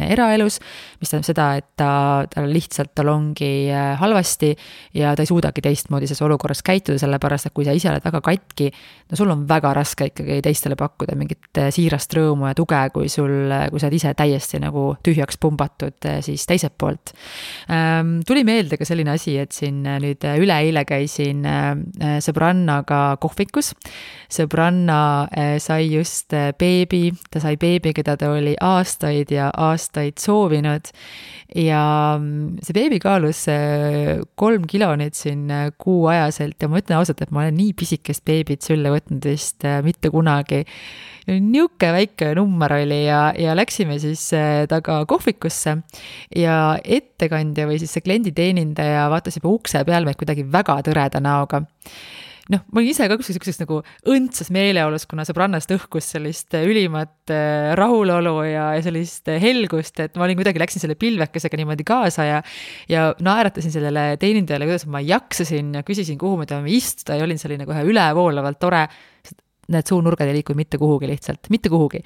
eraelus, mis tähendab seda, et tal ongi halvasti ja ta ei suudagi teistmoodi selles olukorras käituda, sellepärast, et kui sa ise oled väga katki, no sul on väga raske ikkagi teistele pakkuda mingit siirast rõõmu ja tuge, kui sa oled ise täiesti nagu tühjaks pumbatud siis teiselt poolt. Tuli meelde ka selline asi, et siin nüüd üleeile käisin sõbrannaga kohvikus. Sõbranna sai just beebi, ta sai beebi, keda ta oli aastaid ja aastaid soovinud ja see beebi kaalus 3 kilo nüüd siin kuuajaselt ja ma ütlen ausalt, et ma olen nii pisikest beebit sülle võtnud vist mitte kunagi. Niuke väike number oli ja läksime siis taga kohvikusse ja ettekandja või siis see klienditeenindaja vaatas juba ukse peal meid kuidagi väga tõreda näoga. Ma olin ise ka kuseks nagu õndsas meeleolus, kuna sõbrannast õhkus sellist ülimat rahulolu ja sellist helgust, et ma kuidagi läksin selle pilvekesega niimoodi kaasa ja naeratasin sellele teenindajale, kuidas ma jaksasin ja küsisin, kuhu me tahame istuda ja olin selline kohe ülevoolavalt tore. Need suunurgad ei liikunud mitte kuhugi lihtsalt, mitte kuhugi.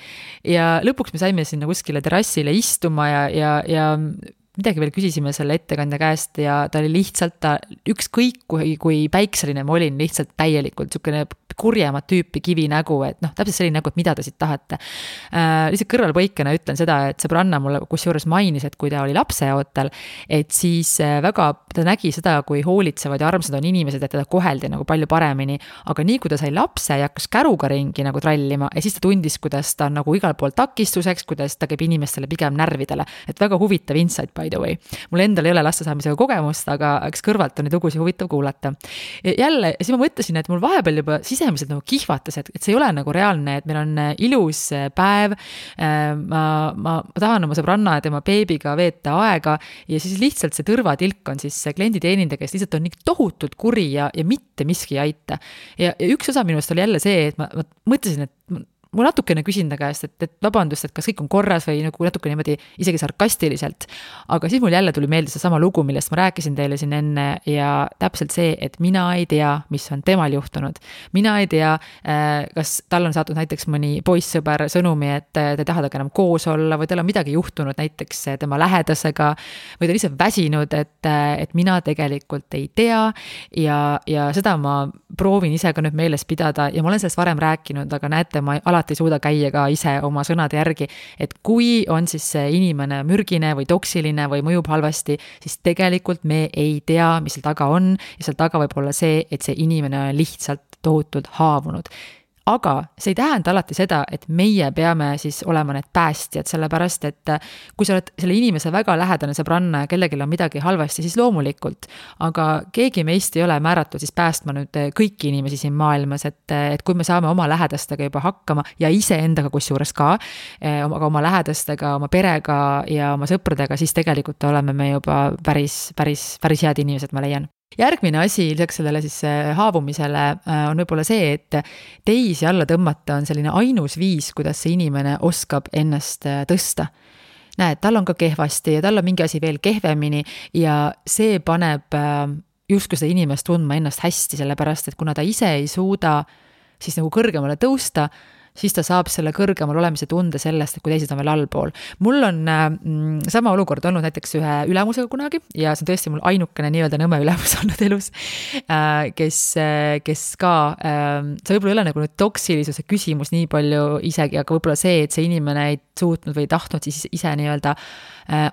Ja lõpuks me saime sinna kuskile terrassile istuma ja midagi veel küsisime selle ettekandja käest ja ta oli lihtsalt ükskõik kui päikseline ma olin lihtsalt täielikult niisugune kurjemat tüüpi kivinägu, et täpselt selline nägu, et mida te siit tahate. Lihtsalt kõrvalpõikena ütlen seda, et sõbranna mulle kusjuures mainis, et kui ta oli lapseootel, et siis väga ta nägi seda, kui hoolitsevad ja armsad on inimesed, et teda koheldi nagu palju paremini, aga nii kui ta sai lapse ja hakkas käruga ringi nagu trallima ja siis ta tundis, kuidas ta on nagu igal pool takistuseks, kuidas ta käib inimestele pigem närvidele, et väga huvitav insight by the way. Mul endal ei ole laste saamisega kogemust, aga eks kõrvalt on neid lugusid huvitav kuulata. Jälle, siis ma mõtlesin, et mul vahepeal juba sisemiselt nagu kihvatas, et see ei ole nagu reaalne, et meil on ilus päev, ma tahan oma sõbranna ja tema beebiga veeta aega ja siis lihtsalt see tõrvatilk on siis see klienditeenindaja, kes lihtsalt on nii tohutult kuri ja mitte miski ei aita. Ja üks osa minust oli jälle see, et ma mõtlesin, et ma natukene küsin ta käest, et vabandust, et kas kõik on korras või nagu natuke niimoodi isegi sarkastiliselt, aga siis mul jälle tuli meelde see sama lugu, millest ma rääkisin teile siin enne ja täpselt see, et mina ei tea, mis on temal juhtunud. Mina ei tea, kas tal on saatnud näiteks mõni poissõber sõnumi, et ta ei taha enam koos olla või tal on midagi juhtunud näiteks tema lähedasega või ta lihtsalt väsinud, et mina tegelikult ei tea ja seda ma proovin ise ka nüüd meeles pidada ja ma olen sellest varem rääkinud, aga näete, ma alati ei suuda käia ka ise oma sõnade järgi, et kui on siis see inimene mürgine või toksiline või mõjub halvasti, siis tegelikult me ei tea, mis seal taga on ja seal taga võib olla see, et see inimene on lihtsalt tohutult haavunud. Aga see ei tähenda alati seda, et meie peame siis olema need päästjad, sellepärast, et kui sa oled selle inimese väga lähedane sõbranna ja kellegil on midagi halvasti, siis loomulikult, aga keegi meist ei ole määratud siis päästma nüüd kõiki inimesi siin maailmas, et kui me saame oma lähedastega juba hakkama ja ise endaga kusjuures ka, aga oma lähedastega, oma perega ja oma sõpradega, siis tegelikult oleme me juba päris head inimesed, ma leian. Järgmine asi lisaks sellele siis haavumisele on võib-olla see, et teisi alla tõmmata on selline ainus viis, kuidas see inimene oskab ennast tõsta. Näed, tal on ka kehvasti ja tal on mingi asi veel kehvemini ja see paneb justkui seda inimest tundma ennast hästi, sellepärast, et kuna ta ise ei suuda siis nagu kõrgemale tõusta, siis ta saab selle kõrgemal olemise tunde sellest, et kui teised on veel allpool. Mul on sama olukord olnud näiteks ühe ülemusega kunagi ja see on tõesti mul ainukene nii-öelda nõme ülemus olnud elus, kes ka, see võib-olla ei ole nagu nüüd toksilisuse küsimus nii palju isegi, aga võib-olla see, et see inimene ei suutnud või tahtnud siis ise nii-öelda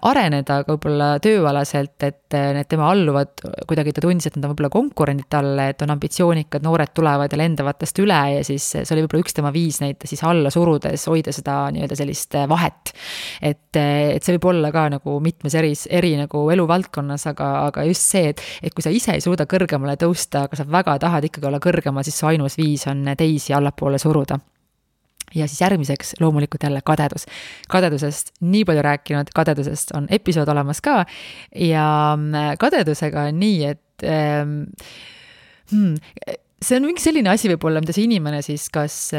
areneda ka võib-olla tööalaselt, et need tema alluvad kuidagi ta tundis, et nad on võib-olla konkurendid talle, et on ambitsioonikad, noored tulevad ja lendavatest üle ja siis see oli võib-olla üks tema viis neid siis alla surudes hoida seda nii-öelda sellist vahet. Et see võib olla ka nagu mitmes eri nagu eluvaldkonnas, aga just see, et kui sa ise ei suuda kõrgemale tõusta, aga sa väga tahad ikkagi olla kõrgema, siis su ainus viis on teisi allapoole suruda. Ja siis järgmiseks loomulikult jälle kadedus. Kadedusest nii palju rääkinud, kadedusest on episood olemas ka ja kadedusega on nii, et see on mingi selline asi võib-olla, mida see inimene siis kas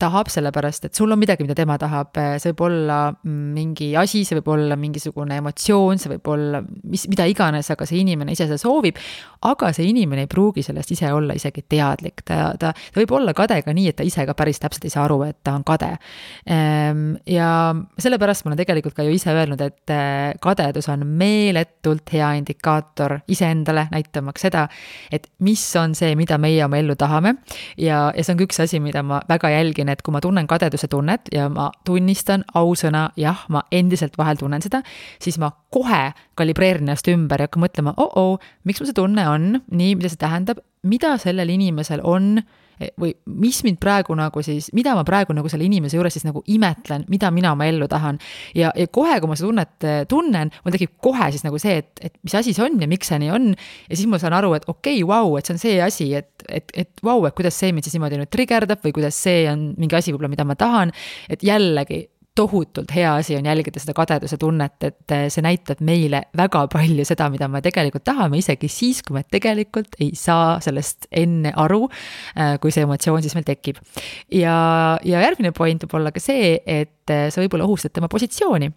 tahab, sellepärast et sul on midagi, mida tema tahab, see võib olla mingi asi, see võib olla mingisugune emotsioon, see võib olla mida iganes, aga see inimene ise seda soovib, aga see inimene ei pruugi sellest ise olla isegi teadlik, ta võib olla kade ka nii, et ta ise ka päris täpselt ei saa aru, et ta on kade. Ja sellepärast ma olen tegelikult ka ju ise öelnud, et kadedus on meeletult hea indikaator iseendale, näitamaks seda, et mis on see, mida meie oma ellu tahame, ja see on üks asi, mida ma väga jälgin, et kui ma tunnen kadeduse tunnet ja ma tunnistan ausõna, jah, ma endiselt vahel tunnen seda, siis ma kohe kalibreerin ennast ümber ja hakkan mõtlema, miks mul see tunne on, nii, mida see tähendab, mida sellel inimesel on, või mis mind praegu nagu siis, mida ma praegu nagu selle inimese juures siis nagu imetlen, mida mina oma ellu tahan. Ja kohe, kui ma seda tunnet tunnen, mul tekib kohe siis nagu see, et mis asi see on ja miks see nii on. Ja siis ma saan aru, et okei, vau, et see on see asi, et vau, et kuidas see mind siis niimoodi nüüd trigerdab või kuidas see on mingi asi võib-olla, mida ma tahan. Et jällegi, tohutult hea asi on jälgida seda kadeduse tunnet, et see näitab meile väga palju seda, mida me tegelikult tahame, isegi siis, kui me tegelikult ei saa sellest enne aru, kui see emotsioon siis meil tekib. Ja järgmine point võib olla ka see, et sa võib-olla ohustad tema positsiooni.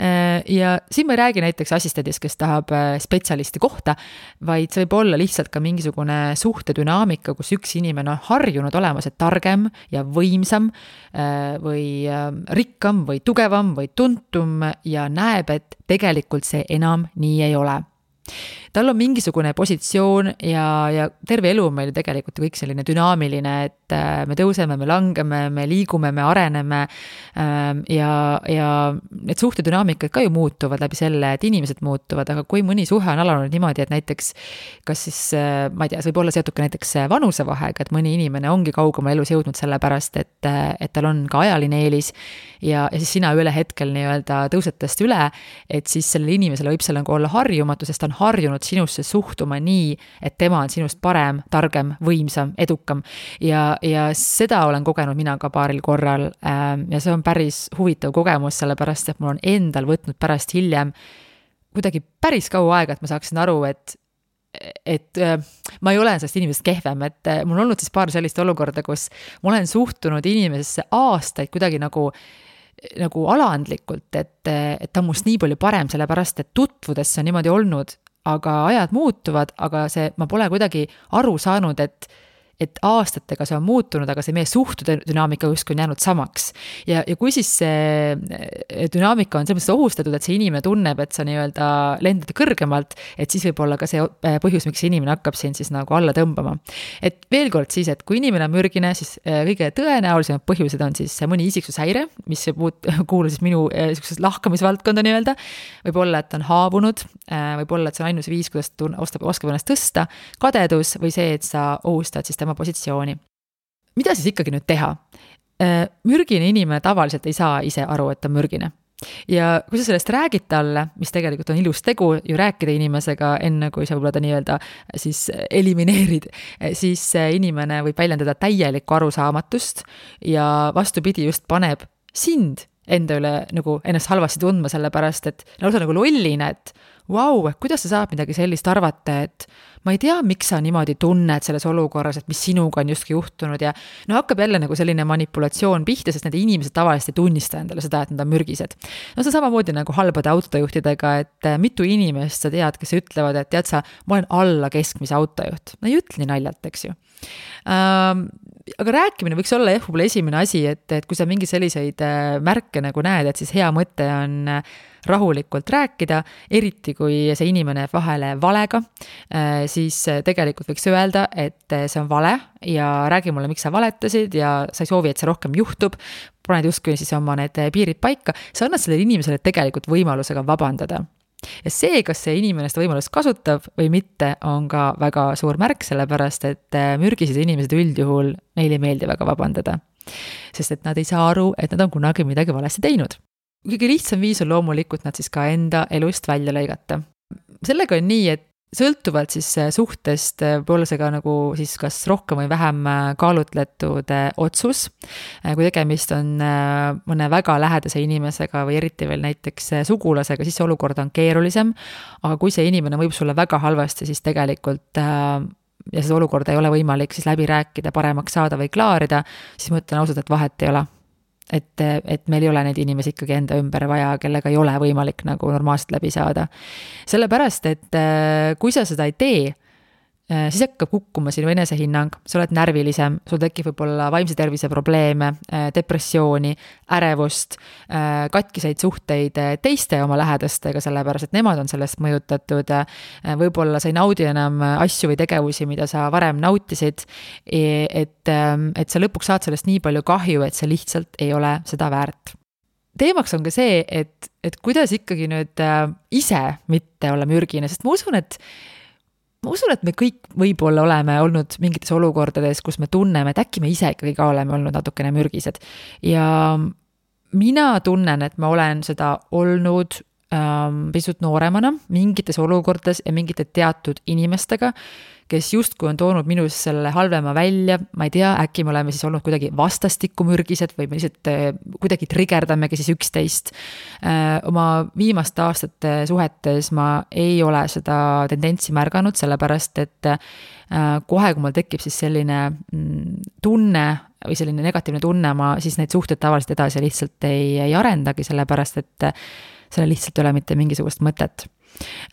Ja siin ma ei räägi näiteks assistendist, kes tahab spetsialisti kohta, vaid see võib olla lihtsalt ka mingisugune suhtedünaamika, kus üks inimene on harjunud olema see targem ja võimsam või rikkam või tugevam või tuntum ja näeb, et tegelikult see enam nii ei ole. Tal on mingisugune positsioon ja terve elu on meil tegelikult kõik selline dünaamiline, et me tõuseme, me langeme, me liigume, me areneme ja need suhtedünaamikad ka ju muutuvad läbi selle, et inimesed muutuvad, aga kui mõni suhe on alanud niimoodi, et näiteks kas siis, ma ei tea, see võib olla seotud ka näiteks vanusevahega, et mõni inimene ongi kaugema elus jõudnud sellepärast, et tal on ka ajaline eelis ja siis sina üle hetkel nii-öelda tõused tast üle, et siis sellele inimesele võib seal nagu olla harjumatu, sest ta on harjunud sinusse suhtuma nii, et tema on sinust parem, targem, võimsam, edukam ja seda olen kogenud mina ka paaril korral ja see on päris huvitav kogemus, sellepärast et mul on endal võtnud pärast hiljem kuidagi päris kaua aega, et ma saaksin aru, et ma ei ole sellest inimesest kehvem, et mul on olnud siis paar sellist olukorda, kus ma olen suhtunud inimesesse aastaid kuidagi nagu alandlikult, et ta on must nii palju parem, sellepärast et tutvudes see on niimoodi olnud, aga ajad muutuvad, aga ma pole kuidagi aru saanud, et aastatega see on muutunud, aga see meie suhtedünaamika justkui on jäänud samaks. Ja kui siis see dünaamika on selles mõttes ohustatud, et see inimene tunneb, et sa nii-öelda lendad kõrgemalt, et siis võib olla ka see põhjus, miks see inimene hakkab siin siis nagu alla tõmbama. Et veel kord siis, et kui inimene on mürgine, siis kõige tõenäolisemad põhjused on siis mõni isiksushäire, mis kuulub siis minu lahkamisvaldkonda nii-öelda, võib olla, et ta on haavunud, võib olla, et see on ainus viis, kuidas ta oskab ennast tõsta, kadedus või see, et sa ohustad siis tema positsiooni. Mida siis ikkagi nüüd teha? Mürgine inimene tavaliselt ei saa ise aru, et ta on mürgine. Ja kui sa sellest räägid talle, mis tegelikult on ilus tegu ju rääkida inimesega enne, kui sa võib-olla ta nii-öelda siis elimineerid, siis inimene võib väljendada täielikku arusaamatust ja vastupidi just paneb sind enda üle nagu ennast halvasti tundma, sellepärast, et lausa nagu lollina, et vau, kuidas sa saad midagi sellist arvata, et ma ei tea, miks sa niimoodi tunned selles olukorras, et mis sinuga on justkui juhtunud ja hakkab jälle nagu selline manipulatsioon pihta, sest need inimesed tavaliselt ei tunnista endale seda, et nad on mürgised. See on samamoodi nagu halbade autojuhtidega, et mitu inimest sa tead, kes ütlevad, et tead sa, ma olen alla keskmise autojuht. No ei ütle nii naljalt, eks ju. Aga rääkimine võiks olla võib-olla esimene asi, et kui sa mingi selliseid märke nagu näed, et siis hea mõte on rahulikult rääkida, eriti kui see inimene jääb vahele valega, siis tegelikult võiks öelda, et see on vale ja räägi mulle, miks sa valetasid ja sa ei soovi, et see rohkem juhtub, paned justkui siis oma need piirid paika, sa annad sellele inimesele tegelikult võimalusega vabandada. Ja see, kas see inimene seda võimalust kasutab või mitte, on ka väga suur märk, sellepärast, et mürgised inimesed üldjuhul neile ei meeldi väga vabandada. Sest et nad ei saa aru, et nad on kunagi midagi valesti teinud. Kõige lihtsam viis on loomulikult nad siis ka enda elust välja lõigata. Sellega on nii, et sõltuvalt siis suhtest võib-olla see ka nagu siis kas rohkem või vähem kaalutletud otsus. Kui tegemist on mõne väga lähedase inimesega või eriti veel näiteks sugulasega, siis see olukord on keerulisem. Aga kui see inimene võib sulle väga halvasti, siis tegelikult ja seda olukorda ei ole võimalik siis läbi rääkida, paremaks saada või klaarida, siis ma ütlen ausalt, et vahet ei ole. Et meil ei ole neid inimesi ikkagi enda ümber vaja, kellega ei ole võimalik nagu normaalselt läbi saada. Sellepärast, et kui sa seda ei tee, siis hakkab kukkuma sinu enesehinnang, sa oled närvilisem, sul tekib võib-olla vaimse tervise probleeme, depressiooni, ärevust, katkiseid suhteid teiste oma lähedastega, sellepärast et nemad on sellest mõjutatud, võib-olla sa ei naudi enam asju või tegevusi, mida sa varem nautisid, et sa lõpuks saad sellest nii palju kahju, et see lihtsalt ei ole seda väärt. Teemaks on ka see, et kuidas ikkagi nüüd ise mitte olla mürgine, sest ma usun, et me kõik võib-olla oleme olnud mingites olukordades, kus me tunneme, et äkki me ise ikkagi ka oleme olnud natukene mürgised. Ja mina tunnen, et ma olen seda olnud pisut nooremana mingites olukordades ja mingite teatud inimestega, kes justkui on toonud minus selle halvema välja, ma ei tea, äkki me oleme siis olnud kuidagi vastastikku mürgised või me lihtsalt kuidagi trigerdamegi siis üksteist. Oma viimaste aastate suhetes ma ei ole seda tendentsi märganud, sellepärast et kohe, kui mul tekib siis selline tunne või selline negatiivne tunne, ma siis neid suhteid tavaliselt edasi lihtsalt ei arendagi, sellepärast et selle lihtsalt ei ole mitte mingisugust mõtet.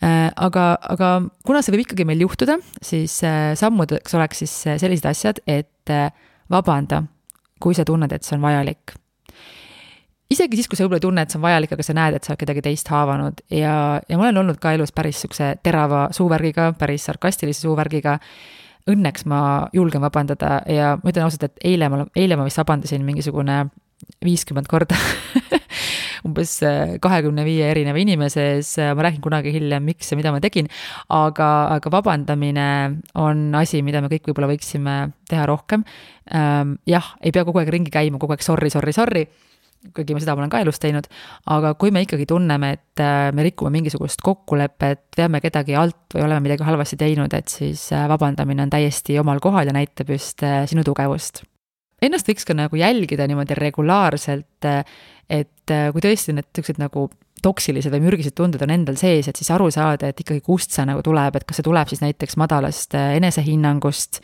Aga kuna see võib ikkagi meil juhtuda, siis sammudeks oleks siis sellised asjad, et vabanda, kui sa tunned, et see on vajalik. Isegi siis, kui sa võib-olla tunned, et see on vajalik, aga sa näed, et sa oled kedagi teist haavanud ja ma olen olnud ka elus päris sukse terava suuvärgiga, päris sarkastilise suuvärgiga. Õnneks ma julgen vabandada ja ma ütlen ausalt, et eile ma vist vabandasin mingisugune 50 korda umbes 25 erineva inimese ees, ma räägin kunagi hiljem, miks ja mida ma tegin, aga vabandamine on asi, mida me kõik võib-olla võiksime teha rohkem. Jah, ei pea kogu aeg ringi käima, kogu aeg sorry, kuigi ma seda olen ka elus teinud, aga kui me ikkagi tunneme, et me rikume mingisugust kokkulepet, veame kedagi alt või oleme midagi halvasti teinud, et siis vabandamine on täiesti omal kohal ja näitab just sinu tugevust. Ennast võiks ka nagu jälgida niimoodi regulaarselt, et kui tõesti need tõksed nagu toksilised või mürgised tunded on endal sees, et siis aru saada, et ikkagi kust see nagu tuleb, et kas see tuleb siis näiteks madalast enesehinnangust,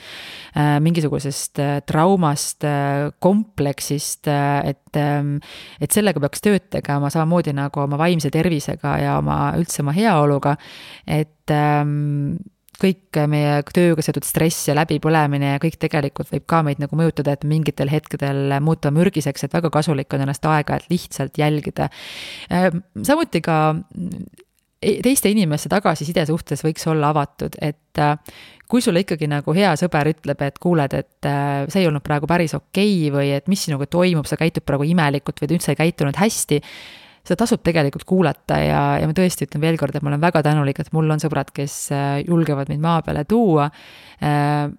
mingisugusest traumast, kompleksist, et sellega peaks tööd tegema samamoodi nagu oma vaimse tervisega ja üldse oma heaoluga, et kõik meie tööga seotud stress ja läbipõlemine ja kõik tegelikult võib ka meid nagu mõjutada, et mingitel hetkedel muuta mürgiseks, et väga kasulik on ennast aega, et lihtsalt jälgida. Samuti ka teiste inimeste tagasiside suhtes võiks olla avatud, et kui sulle ikkagi nagu hea sõber ütleb, et kuuled, et see ei olnud praegu päris okei või et mis sinuga toimub, sa käitud praegu imelikult või üldse ei käitunud hästi, seda tasub tegelikult kuulata ja ma tõesti ütlen veel kord, et ma olen väga tänulik, et mul on sõbrad, kes julgevad mind maa peale tuua.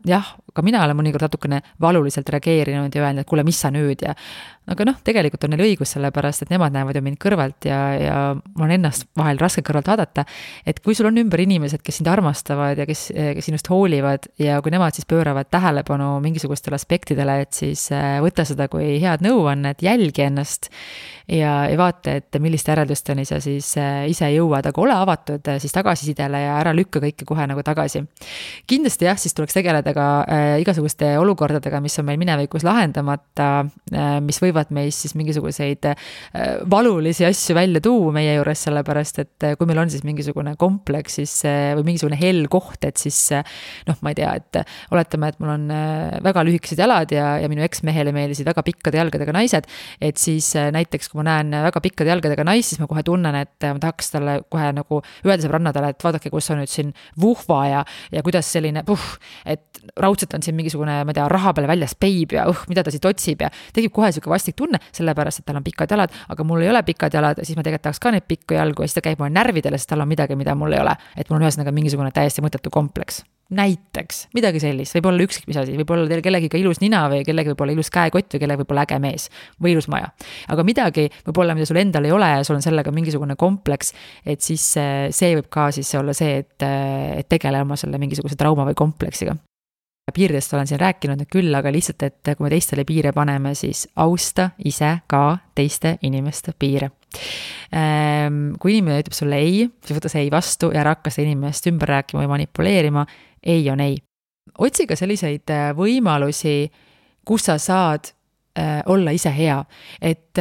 Jah, ka mina olen mõnikord natukene valuliselt reageerinud ja öelnud, et kuule, mis sa nüüd ja aga tegelikult on neil õigus sellepärast, et nemad näevad ju mind kõrvalt ja mul on ennast vahel raske kõrvalt vaadata, et kui sul on ümber inimesed, kes sind armastavad ja kes sinust hoolivad ja kui nemad siis pööravad tähelepanu mingisugustele aspektidele, et siis võta seda kui head nõuannet, jälgi ennast ja vaata, et milliste järeldusteni sa siis ise jõuad, aga ole avatud siis tagasisidele ja ära lükka kõike kohe nagu tagasi. Kindlasti jah, siis tuleks tegeleda ka igasuguste olukordadega, mis on meil minevikus lahendamata, mis võivad meist siis mingisuguseid valulisi asju välja tuua meie juures, sellepärast, et kui meil on siis mingisugune kompleks siis, või mingisugune hell koht, et siis ma ei tea, et oletame, et mul on väga lühikesed jalad ja minu eksmehele meeldisid väga pikkade jalgadega naised, et siis näiteks kui ma näen väga pikkade jalgadega naist, siis ma kohe tunnen, et ma tahaks talle kohe nagu öelda sõbrannadele, et vaadake, kus on nüüd siin vuhva ja kuidas selline et raudselt on siin mingisugune, ma ei tea, raha peale väljas peib ja mida ta siit otsib ja tegib kohe siuke vastik tunne, sellepärast, et tal on pikad jalad, aga mul ei ole pikad jalad, siis ma tegelikult tahaks ka neid pikku jalgu ja siis ta käib mulle närvidele, sest tal on midagi, mida mul ei ole, et mul on ühesõnaga mingisugune täiesti mõttetu kompleks. Näiteks, midagi sellist, võib olla ükskõik mis asi, võib olla teil kellegi ka ilus nina või kellegi võib olla ilus käekott või kellegi võib olla äge mees või ilus maja. Aga midagi võib olla, mida sul endal ei ole ja sul on sellega mingisugune kompleks, et siis see võib ka siis olla see, et tegele oma selle mingisuguse trauma või kompleksiga. Piiridest olen siin rääkinud küll, aga lihtsalt, et kui me teistele piire paneme, siis austa ise ka teiste inimeste piire. Kui inimene ütleb sulle ei, siis võta see ei vastu ja ära hakka seda inimest ümber rääkima või manipuleerima, ei on ei. otsi ka selliseid võimalusi, kus sa saad olla ise hea, et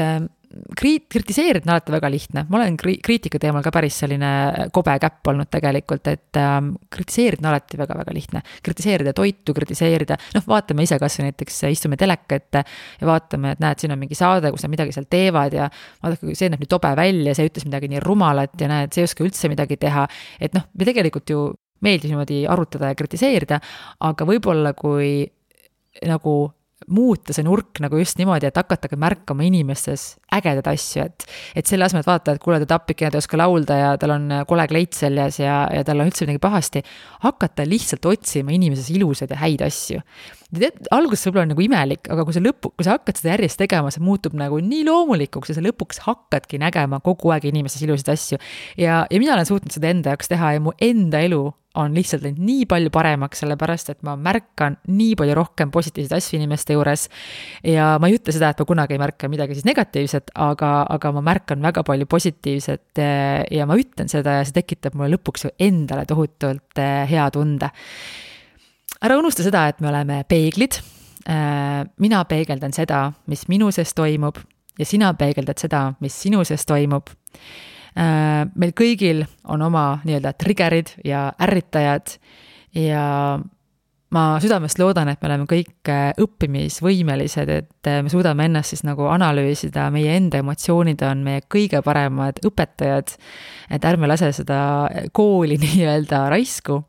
kritiseerida on alati väga lihtne. Ma olen kriitika teemal ka päris selline kobe käpp olnud tegelikult, et kritiseerida on alati väga-väga lihtne. Kritiseerida toitu, kritiseerida, vaatame ise kas näiteks istume teleka ette ja vaatame, et näed, siin on mingi saade, kus nad midagi seal teevad ja vaadake, see näeb nii tobe välja, see ütles midagi nii rumalat ja näed, see ei oska üldse midagi teha. Et me tegelikult ju meeldib niimoodi arutada ja kritiseerida, aga võib-olla kui nagu muuta see nurk nagu just niimoodi, et hakatage märkama inimestes ägedad asju, et selle asemel, et vaata, et kuule, ta tapikene, ta ei oska laulda ja tal on kole kleit seljas ja tal on üldse midagi pahasti, hakata lihtsalt otsima inimeses ilusaid ja häid asju. Alguses võib-olla on nagu imelik, aga kui sa hakkad seda järjest tegema, see muutub nagu nii loomulikuks ja sa lõpuks hakkadki nägema kogu aeg inimeses ilusaid asju. Ja mina olen suutnud seda enda jaoks teha ja mu enda elu on lihtsalt nii palju paremaks, sellepärast, et ma märkan nii palju rohkem positiivseid asju inimeste juures ja ma ei ütle seda, et ma kunagi ei märka midagi siis negatiivset, aga ma märkan väga palju positiivset ja ma ütlen seda ja see tekitab mulle lõpuks ju endale tohutult hea tunde. Ära unusta seda, et me oleme peeglid. Mina peegeldan seda, mis minu sees toimub ja sina peegeldad seda, mis sinu sees toimub. Meil kõigil on oma nii-öelda triggerid ja ärritajad ja ma südamest loodan, et me oleme kõik õppimisvõimelised, et me suudame ennast siis nagu analüüsida, meie enda emotsioonid on meie kõige paremad õpetajad, et ärme lase seda kooli nii-öelda raisku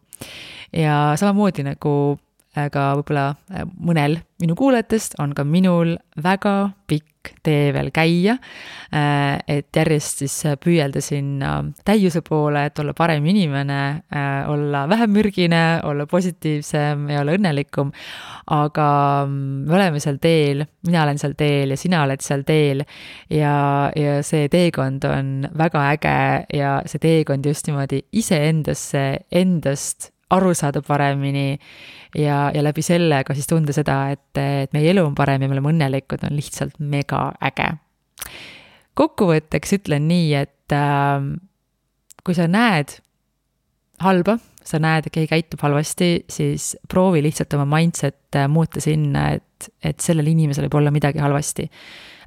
ja samamoodi nagu ka võib-olla mõnel minu kuulajatest on ka minul väga pikk tee veel käia, et järjest siis püüelda sinna täiuse poole, et olla parem inimene, olla vähem mürgine, olla positiivsem ja olla õnnelikum, aga me oleme seal teel, mina olen seal teel ja sina oled seal teel ja see teekond on väga äge ja see teekond just niimoodi iseendasse, endast aru saada paremini ja läbi selle ka siis tunda seda, et meie elu on parem ja me oleme õnnelikud, on lihtsalt mega äge. Kokkuvõtteks ütlen nii, et kui sa näed halba, sa näed, et keegi käitub halvasti, siis proovi lihtsalt oma mindset muuta sinna, et sellel inimesel võib olla midagi halvasti.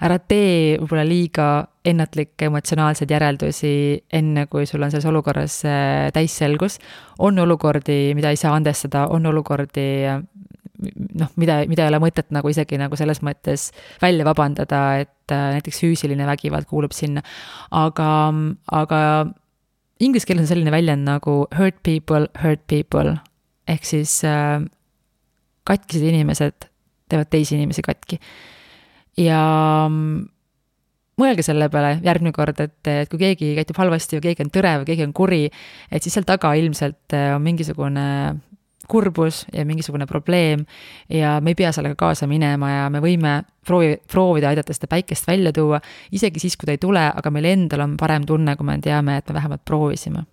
Ära tee võib-olla liiga ennatlikke emotsionaalseid järeldusi enne, kui sul on selles olukorras täisselgus. On olukordi, mida ei saa andestada, on olukordi, mida ei ole mõtet nagu isegi nagu selles mõttes välja vabandada, et näiteks füüsiline vägivald kuulub sinna. Aga inglise keeles on selline väljend nagu hurt people, ehk siis katkised inimesed teevad teisi inimesi katki. Ja mõelge selle peale järgmine kord, et kui keegi käitub halvasti või keegi on tõrev, keegi on kuri, et siis seal taga ilmselt on mingisugune kurbus ja mingisugune probleem ja me ei pea sellega kaasa minema ja me võime proovida aidata seda päikest välja tuua, isegi siis, kui ta ei tule, aga meil endal on parem tunne, kui me teame, et me vähemalt proovisime.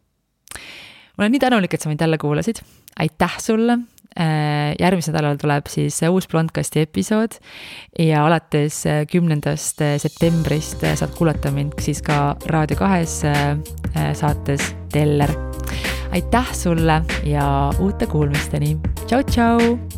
Ma olen nii tänulik, et sa mind jälle kuulasid. Aitäh sulle! Järgmisel nädalal tuleb siis uus Blondcasti episood ja alates 10. septembrist saad kuulata mind siis ka Raadio 2 saates Teller. Aitäh sulle ja uute kuulmisteni! Tšau, tšau!